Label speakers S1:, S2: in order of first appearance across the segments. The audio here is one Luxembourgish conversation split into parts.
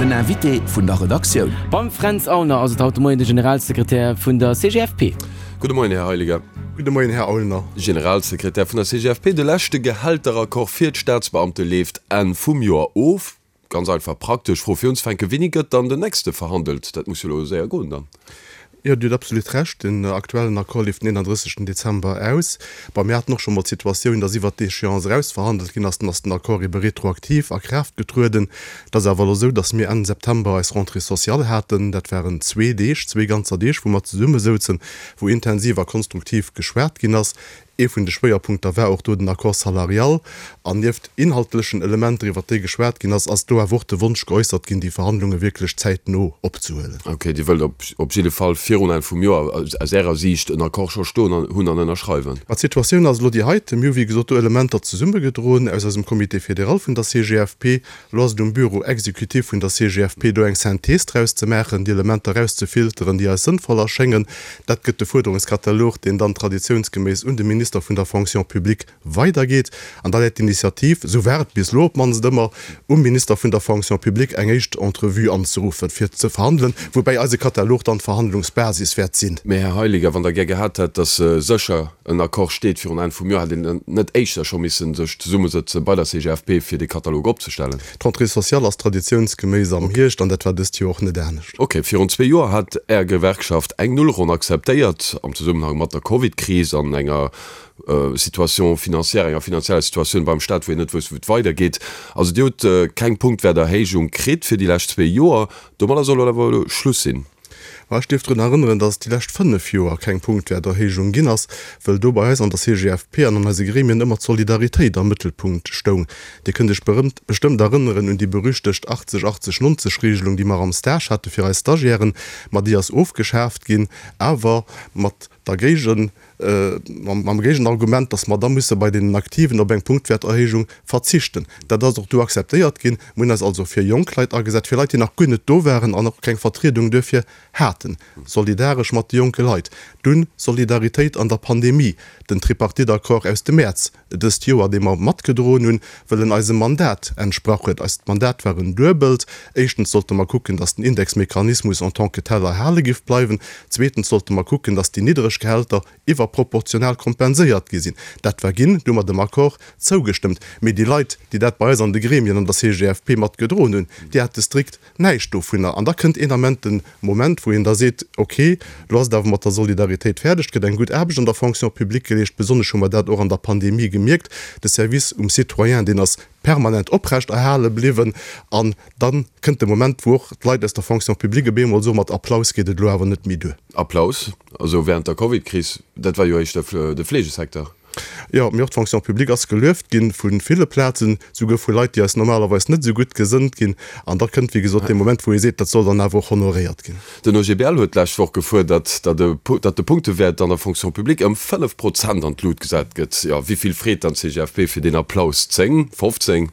S1: Den Invité vun der Redaktioun.
S2: Beim Fränz Aulner ass et haut de Moien de Generalsekretär vun der CGFP.
S3: Gudde Moien, Här Heiliger.
S4: Gudde Moien, Här Aulner.
S3: Generalsekretär vun der CGFP, De leschte Gehälteraccord fir d'Staatsbeamte leeft Enn vum Joer of. Ganz einfach praktesch Fro fir unzefänken, Wéini gëtt dann den nächste verhandelt? Dat muss jo elo séier goen dann.
S4: Jo, Dir hutt absolut Recht. Den aktuellen Accord leeft den 31. Dezember aus. Bon, mir haten och scho mol d'Situatioun, dass iwwert d'Échéance eraus verhandelt ginn ass. Dann ass den Accord ebe retroaktiv a Kraaft getrueden. Et ass awer elo esou, dass mir Enn September eis Rentrée sociale haten. Dat waren zwee Deeg, zwee ganzer Deeg, wou mer zesummesouzen, wou intensiv a konstruktiv geschwat ginn ass. Ee vun de Schwéierpunkter war och do den Accord salarial. An nieft inhaltlechen Elementer, iwwert déi geschwat ginn ass, ass do awer och de Wonsch geäussert ginn, déi Verhandlunge wierklech zäitno opzehuelen.
S3: Ok, Dir wëllt op jidde Fall virun Enn vum Joer aus Ärer Siicht en Accord scho stoen hunn an ënnerschreiwen?
S4: Ma d'Situatioun ass elo déi heite. Mir hu wéi gesot do Elementer zesummegedroen aus eisem Comité fédéral vun der CGFP. Elo ass et um Bureau exécutif vun der CGFP, do eng Synthese draus ze maachen, déi Elementer erauszefilteren, déi eis sënnvoll erschéngen. Dat gëtt de Fuerderungskatalog, deen dann traditiounsgeméiss un de Minister vun der Fonction publique weidergeet. An da läit d'Initiativ, esou war et bis elo op d'mannst ëmmer, um Minister vun der Fonction publique, eng éischt Entrevue anzeruffen, fir ze verhandelen, woubäi eise Katalog dann d'Verhandlungsbasis wäert sinn.
S3: Mä, Här Heiliger, wann Der gär gehat hätt, datt sécher en Accord steet virun Enn vum Joer, hätt een dann net éischter scho missen sech zesummesëtze bei der CGFP fir dee Katalog opzestellen?
S4: D'Rentrée sociale ass traditiounsgeméiss am Hierscht an dat war dëst Joer och net anescht.
S3: Ok, virun zwee Joer hat Är Gewerkschaft eng Nullronn akzeptéiert am Zesummenhang mat der Covid-Kris an enger Situation financière, enger finanzieller Situatioun beim Staat, wou een net wousst, wou et weidergeet. Also Dir hutt keng Punktwäerterhéijung kritt fir déi lescht zwee Joer. Domadder soll awer elo Schluss sinn.
S4: Ma ech dierf drun erënneren, dass et déi lescht 5 Joer keng Punktwäerterhéijung ginn ass, wëll do bei eis an der CGFP an an eise Gremien ëmmer d'Solidaritéit am Mëttelpunkt stoung. Dir kënnt Iech berëmt bestëmmt erënneren un déi berüchtegt 80, 80, 90 Regelung, déi mer am Stage hate fir eis Stagiairen. Ma déi ass ofgeschaaft ginn, awer mat der Géigen, mam Géigenargument, dass mer da musse bei deenen Aktiven op eng Punktwäerterhéijung verzichten. Dat ass och du akzeptéiert ginn. Mir hunn eis also fir jonk Leit agesat, fir Leit, déi nach guer net do waren an och keng Vertriedung duerfir haten. Solidaresch mat de jonke Leit. Dunn Solidaritéit an der Pandemie, den Tripartite-Accord aus dem Mäerz dëst Joer, dee mer matgedroen hunn, wëll en eisem Mandat entsprach huet. Eist Mandat war en duebelt, Éischtens sollte mer kucken, datt den Indexmechanismus en tant que tel erhale giff bleiwen. Zweetens sollte mer kucken, datt déi niddreg Gehälter iwwerproportional kompenséiert gi sinn. Dat war ginn, du hu mer dem Accord zougestëmmt. Mee déi Leit, déi dat bei eis an de Gremien, an der CGFP matgedroen hunn, déi hate strikt näischt dovunner. An da kënnt een Ament de Moment, wou een da seet, ok, elo ass et awer mat der Solidaritéit fäerdeg, et gëtt eng gutt Aarbecht an der Fonction publique geleescht, besonnesch hu mer dat och an der Pandemie gemierkt, de Service um Citoyen, deen ass permanent oprecht erhale bliwwen. An da kënnt de Moment, wou och d'Leit aus der Fonction publique op eemol soen, mat Applaus geet et elo awer net méi duer.
S3: Applaus, also während der Covid-Kris, dat war jo éischter de Fleegesecteur.
S4: Jo, mee och d'Fonction publique ass gelueft ginn vu ville Plazen, souguer vu Leit, déi eis normalerweis net esou gutt gesënnt ginn. An da kënnt, wéi gesot, dee Moment, wou ee seet, dat soll dann awer och honoréiert ginn.
S3: Den OGBL huet d'lescht Woch gefuerdert, datt de Punktewäert an der Fonction publique ëm 5 Prozent an d'Lut gesat gëtt. Jo, wéi vill freet dann d'CGFP fir deen Applaus? 10? 15?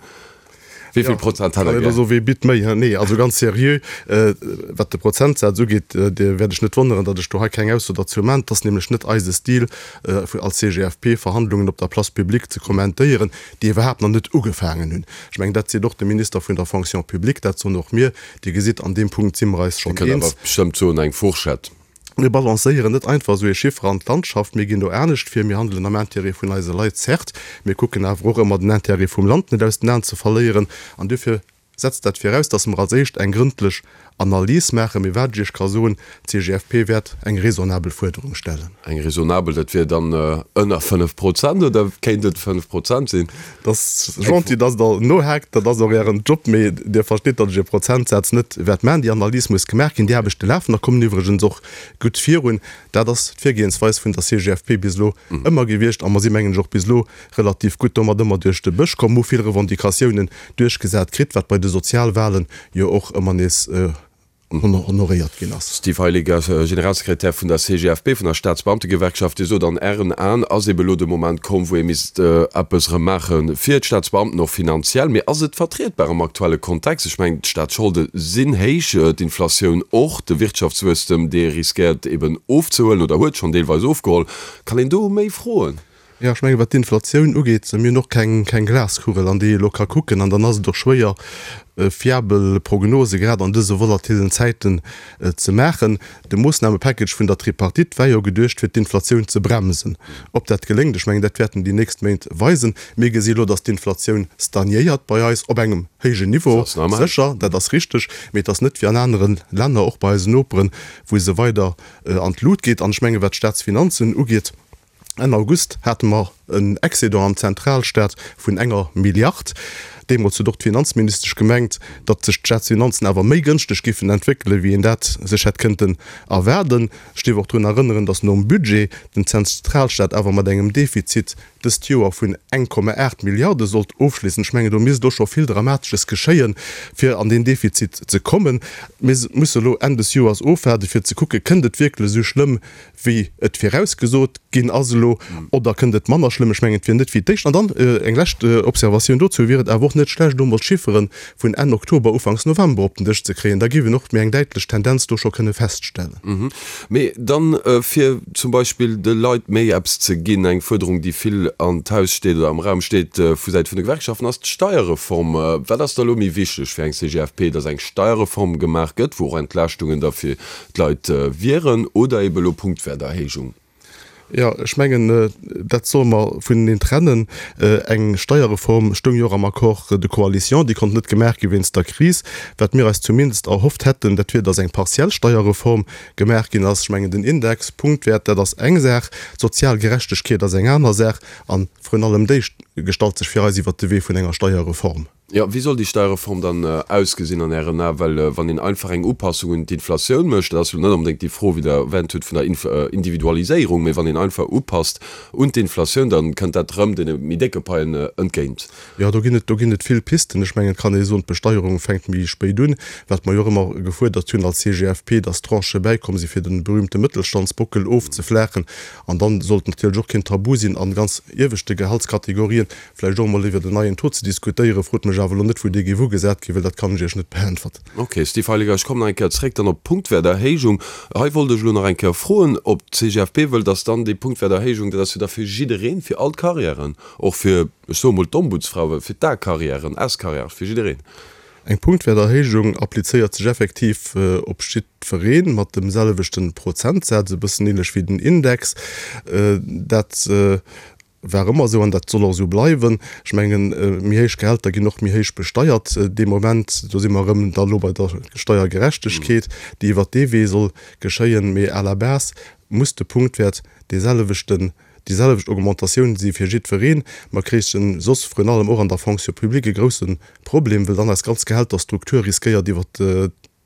S3: Wéi vill Prozent hätt Der gär?
S4: Also, wee bitt méi? Nee, also ganz seriö, wat de Prozentsaz ugeet, Dir wäert Iech net wonneren, datt ech do hei keng Ausso derzou man. Et ass nämlech net eise Stil als CGFP, Verhandlungen op der Place publique ze kommentéieren, déi iwwerhaapt nach net ugefaangen hunn. Ech mengen, dat seet och de Minister vun der Fonction publique, dat soen och mir. Dir gesitt, an deem Punkt si mer eis
S3: schonn eens. Dir kënnt awer bestëmmt soen, eng Fourchette.
S4: Mir balancéieren net einfach esou ee Chiffer an d'Landschaft, mir ginn do anescht vir. Mir handelen am Intérêt vun eise Leit, certes, mir kucken awer och ëmmer den Intérêt vum Land net aus den Aen ze verléieren. An duerfir setzt dat viraus, dass mer als éischt eng grëndlech Analys maachen. Mee wat ech Iech ka soen, D'CGFP wäert eng raisonnabel Fuerderung stellen.
S3: Eng raisonnabel, dat wier dann ënner 5 Prozent oder kéint et 5 Prozent sinn?
S4: Dat ass gentil, dass Der nohaakt. Dat ass och Ären Job. Mee Dir verstitt, datt ech e Prozentsaz net wäert maachen. Déi Analys muss gemaach ginn. Déi Aarbechte lafen a kommen iwwregens och gutt virun. Dat ass d'Virgehensweis vun der CGFP bis elo ëmmer gewiescht. A mer si mengen ech och bis elo relativ gutt domat ëmmer duerch de Bësch komm, hu vill Revendicatiounen duerchgesat kritt, wat bei de Sozialwahlen jo och ëmmer nees honoréiert ginn ass.
S3: Steve Heiliger, Generalsekretär vun der CGFP, vun der Staatsbeamtegewerkschaft, Dir sot, an Ären Aen ass ebe elo de Moment komm, wou ee misst eppes erëm maache fir d'Staatsbeamten, och finanziell. Mee ass et vertrietbar am aktuelle Kontext? Ech mengen, d'Staatsscholde sinn héich, d'Inflatioun och, de Wirtschaftswuesstem, dee riskéiert eben ofzehuelen oder huet schonn deelweis ofgeholl. Kann een do méi froen?
S4: Jo, ech mengen, wat d'Inflatioun ugeet, mir hunn och keng, keng Glaskugel, an déi ee elo ka kucken. An dann ass et och schwéier, fiabel Prognose grad an dëse volatilen Zäiten ze maachen. De Moossnamepackage vun der Tripartite war jo geduecht, fir d'Inflatioun ze bremsen. Ob dat geléngt, ech mengen, dat wäerten déi nächst Méint weisen. Mir gesi elo, datt d'Inflatioun stagnéiert bei eis op engem héijen Niveau, sécher, dat ass richteg, mee et ass net wéi an anere Länner, och bei eisen Noperen, wou se weider an d'Lut geet. An ech mengen, wat d'Staatsfinanzen ugeet, Enn August hate mer en Excédent am Zentralstaat vun enger Milliard. Deemools huet och d'Finanzministesch gemengt, datt sech d'Staatsfinanzen awer méi gënschteg giffen entwéckelen, wéi een dat sech hätt kënnten erwaarden. Ech dierf och drun erënneren, datt nom Budget den Zentralstaat awer mat engem Defizit dëst Joer vun 1,8 Milliarde sollt ofschléissen. Ech mengen, do misst och scho vill Dramatesches geschéien, fir an deen Defizit ze kommen. Mir musse elo Enn des Joers ofwaarden, fir ze kucken, Kënnt et wierklech esou schlëmm, wéi et virausgesot ginn ass elo, oder kënnt et manner schlëmm? Ech mengen, et wier net wéi d'éischt. An dann eng lescht Observatioun dozou, Wier et awer och net schlecht, elo emol d'Chiffere vun Enn Oktober, Ufanks November op den Dësch ze kréien? Da géif een och méi eng däitlech Tendenz do scho kënne feststellen.
S3: Mee dann, fir zum Beispill de Leit méi eppes ze ginn, eng Fuerderung, déi vill an d'Haus steet oder am Raum steet vu Säit vun de Gewerkschaften, ass d'Steierreform. Wat ass da elo méi wichteg fir eng CGFP, dass eng Steierreform gemaach gëtt, wou och Entlaaschtungen da fir d'Leit wieren oder ebe elo Punktwäerterhéijung?
S4: Jo, ech mengen, dat solle mer vuneneen trennen. Eng Steierreform stoung jo och am Accord de coalition, déi konnt net gemaach gi wéinst der Kris. Wat mir eis zumindest erhofft hätten, dat wier, datt eng partiell Steierreform gemaach ginn ass. Ech mengen, den Index, Punktwäert, dat ass eng Saach, d'sozial Gerechtegkeet ass eng aner Saach a vrun allem déi gestallt sech fir eis iwwert de Wee vun enger Steierreform.
S3: Jo, wéi soll déi Steierreform dann ausgesinn an Ären Aen? Well wann een einfach eng Upassung un d'Inflatioun mécht, dat ass jo net onbedéngt déi Fro, wéi Der erwänt hutt, vun der Individualiséierung, mee wann een einfach upasst un d'Inflatioun, da kënnt dat erëm deene méi décke Paien entgéint.
S4: Jo, do ginn et, do ginn et vill Pisten. Ech mengen, et kann ee soen, d'Besteierung fänkt méi spéit un. Wat mer jo och ëmmer gefuerdert hunn als CGFP, dass Tranchë bäikomm si fir de berühmte Mëttelstandsbockel ofzeflaachen. An dann sollt natierlech och keen Tabu sinn an ganz ieweschte Gehaltskategorien Vläicht och emol iwwert en neien Taux ze diskutéieren. Frot mech awer elo net, wou dee géif ugesat ginn, well dat kann ech Iech net beäntwerten.
S3: Ok, Steve Heiliger, ech kommen nach eng Kéier zréck dann op d'Punktwäerterhéijung. Hei wollt ech elo nach eng Kéier froen, ob d'CGFP wëll, dass dann déi Punktwäerterhéijung, dat ass jo da fir jiddereen, fir all d'Carrièren, och fir, ech soe mol d'Ombudsfrau, fir d'A-Carrièren, S-Carrièrë, fir jiddereen.
S4: Eng Punktwäerterhéijung applizéiert sech effektiv op jiddweree mat dem selwechte Prozentsaz, e bëssen ähnlech wéi den Index. Dat War ëmmer esou an dat soll och esou bleiwen. Ech mengen, méi héich Gehälter ginn och méi héich besteiert dee Moment. Do si mer erëm da elo bei der Steiergerechtegkeet, déi iwwert dee Wee soll geschéien. Mee à la base muss de Punktwäert dee selwechten, déi selwecht Augmentatioun si fir jiddwereen. Mer kréichen soss vrun allem och an der Fonction publique e grousse Problem, well dann eis ganz Gehälterstruktur riskéiert iwwert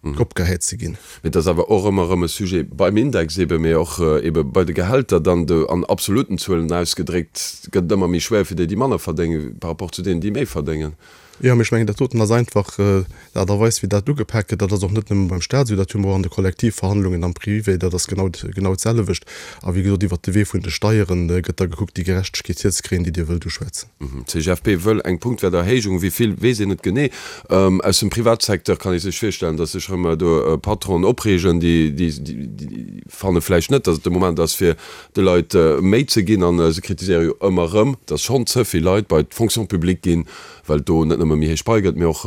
S4: opgehäit ze ginn.
S3: Mee et ass awer och ëmmer erëm e Sujet beim Index eebe, mee och eebe bei de Gehälter dann do an absoluten Zuelen ausgedréckt, gëtt et ëmmer méi schwéier fir déi, déi manner verdéngen, par rapport zu deenen, déi méi verdéngen.
S4: Jo, mee ech mengen, dat doten ass einfach d'Aart a Weis, wéi dat ugepak gëtt. Dat ass och net nëmme beim Stat esou, dat hu mer och an de Kollektivverhandlungen am Privé, dat ass genau, genau d'selwecht. A wéi gesot, iwwert de Wee vun de Steiere gëtt da gekuckt, déi Gerechtegkeet hierzekréien, déi Dir wëllt uschwätzen.
S3: D'CGFP wëll eng Punktwäerterhéijung, wéi vill weess een net genee. Aus dem Privatsecteur kann ee sech virstellen, datt sech erëm do Patronen opreegen, déi fanne vläicht net, datt et de Moment ass fir de Leit méi ze ginn. A se kritiséiere jo ëmmer erëm, datt schonn ze vill Leit bei d'Fonction publique ginn, well et do net nëmme méi héich Pai gëtt, mee och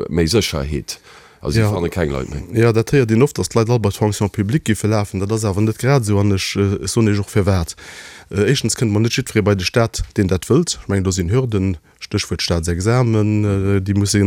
S3: méi Sécherheet. A si fanne keng Leit méi.
S4: Jo, dat héiert een oft, datt d'Leit all bei d'Fonction publique giffe lafen. Dat ass awer net grad esou an ech soen Iech och firwat. Éischtens kënnt mol net jiddweree bei de Staat, deen dat wëllt. Ech mengen, do sinn Hürden, Stéchwuert Staatsexamen, déi musse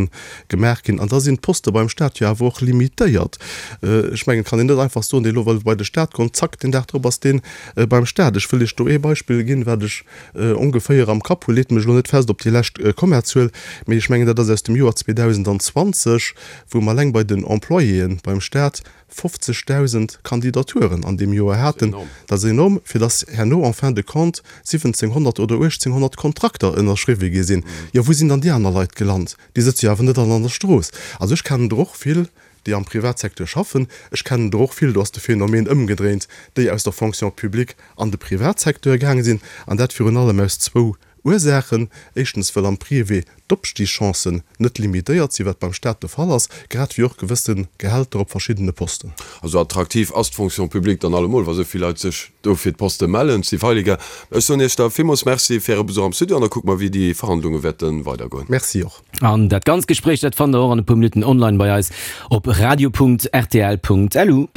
S4: gemaach ginn. An da sinn d'Poste beim Staat jo awer och limitéiert. Ech mengen, et kann een net einfach soen, dee lo wëll bei de Staat goen, zack, deen Dag drop ass dee beim Staat. Ech wëll Iech do ee Beispill ginn, wat ech ongeféier am Kapp hu, leet mech elo net fest op déi lescht Kommazuel, mee ech mengen dat ass aus dem Joer 2020, wou mer eleng bei den Employéen beim Staat 50.000 Kandidaturen an deem Joer haten. Dat ass enorm, fir datt herno en fin de compte 1.700 oder 1.800 Kontrakter ënnerschriwwe gi sinn. Jo, wou sinn dann déi aner Leit gelant? Déi sëtze jo awer net all an der Strooss. Also ech kennen der och vill, déi am Privatsecteur schaffen. Ech kennen der och vill, do ass de Phänomen ëmgedréint, déi aus der Fonction publique an de Privatsecteur gaange sinn, an dat virun allem aus zwou. Ursaachen. Éischtens, well am Privé d'Opstigschancen net limitéiert sinn, wat beim Staat de Fall ass, grad wéi och gewësse Gehälter op verschiddene Posten.
S3: Also attraktiv ass d'Fonction publique dann allemol, wa sou vill Leit sech do fir d'Poste mellen. Steve Heiliger, ech soen Iech da villmools Merci fir Äre Besuch am Studio an da kucke mer, wéi déi Verhandlunge wäerte weidergoen.
S4: Merci och.
S2: An dat ganzt Gespréich, dat fannt der och an e puer Minutten online bei eis op radio.rtl.lu.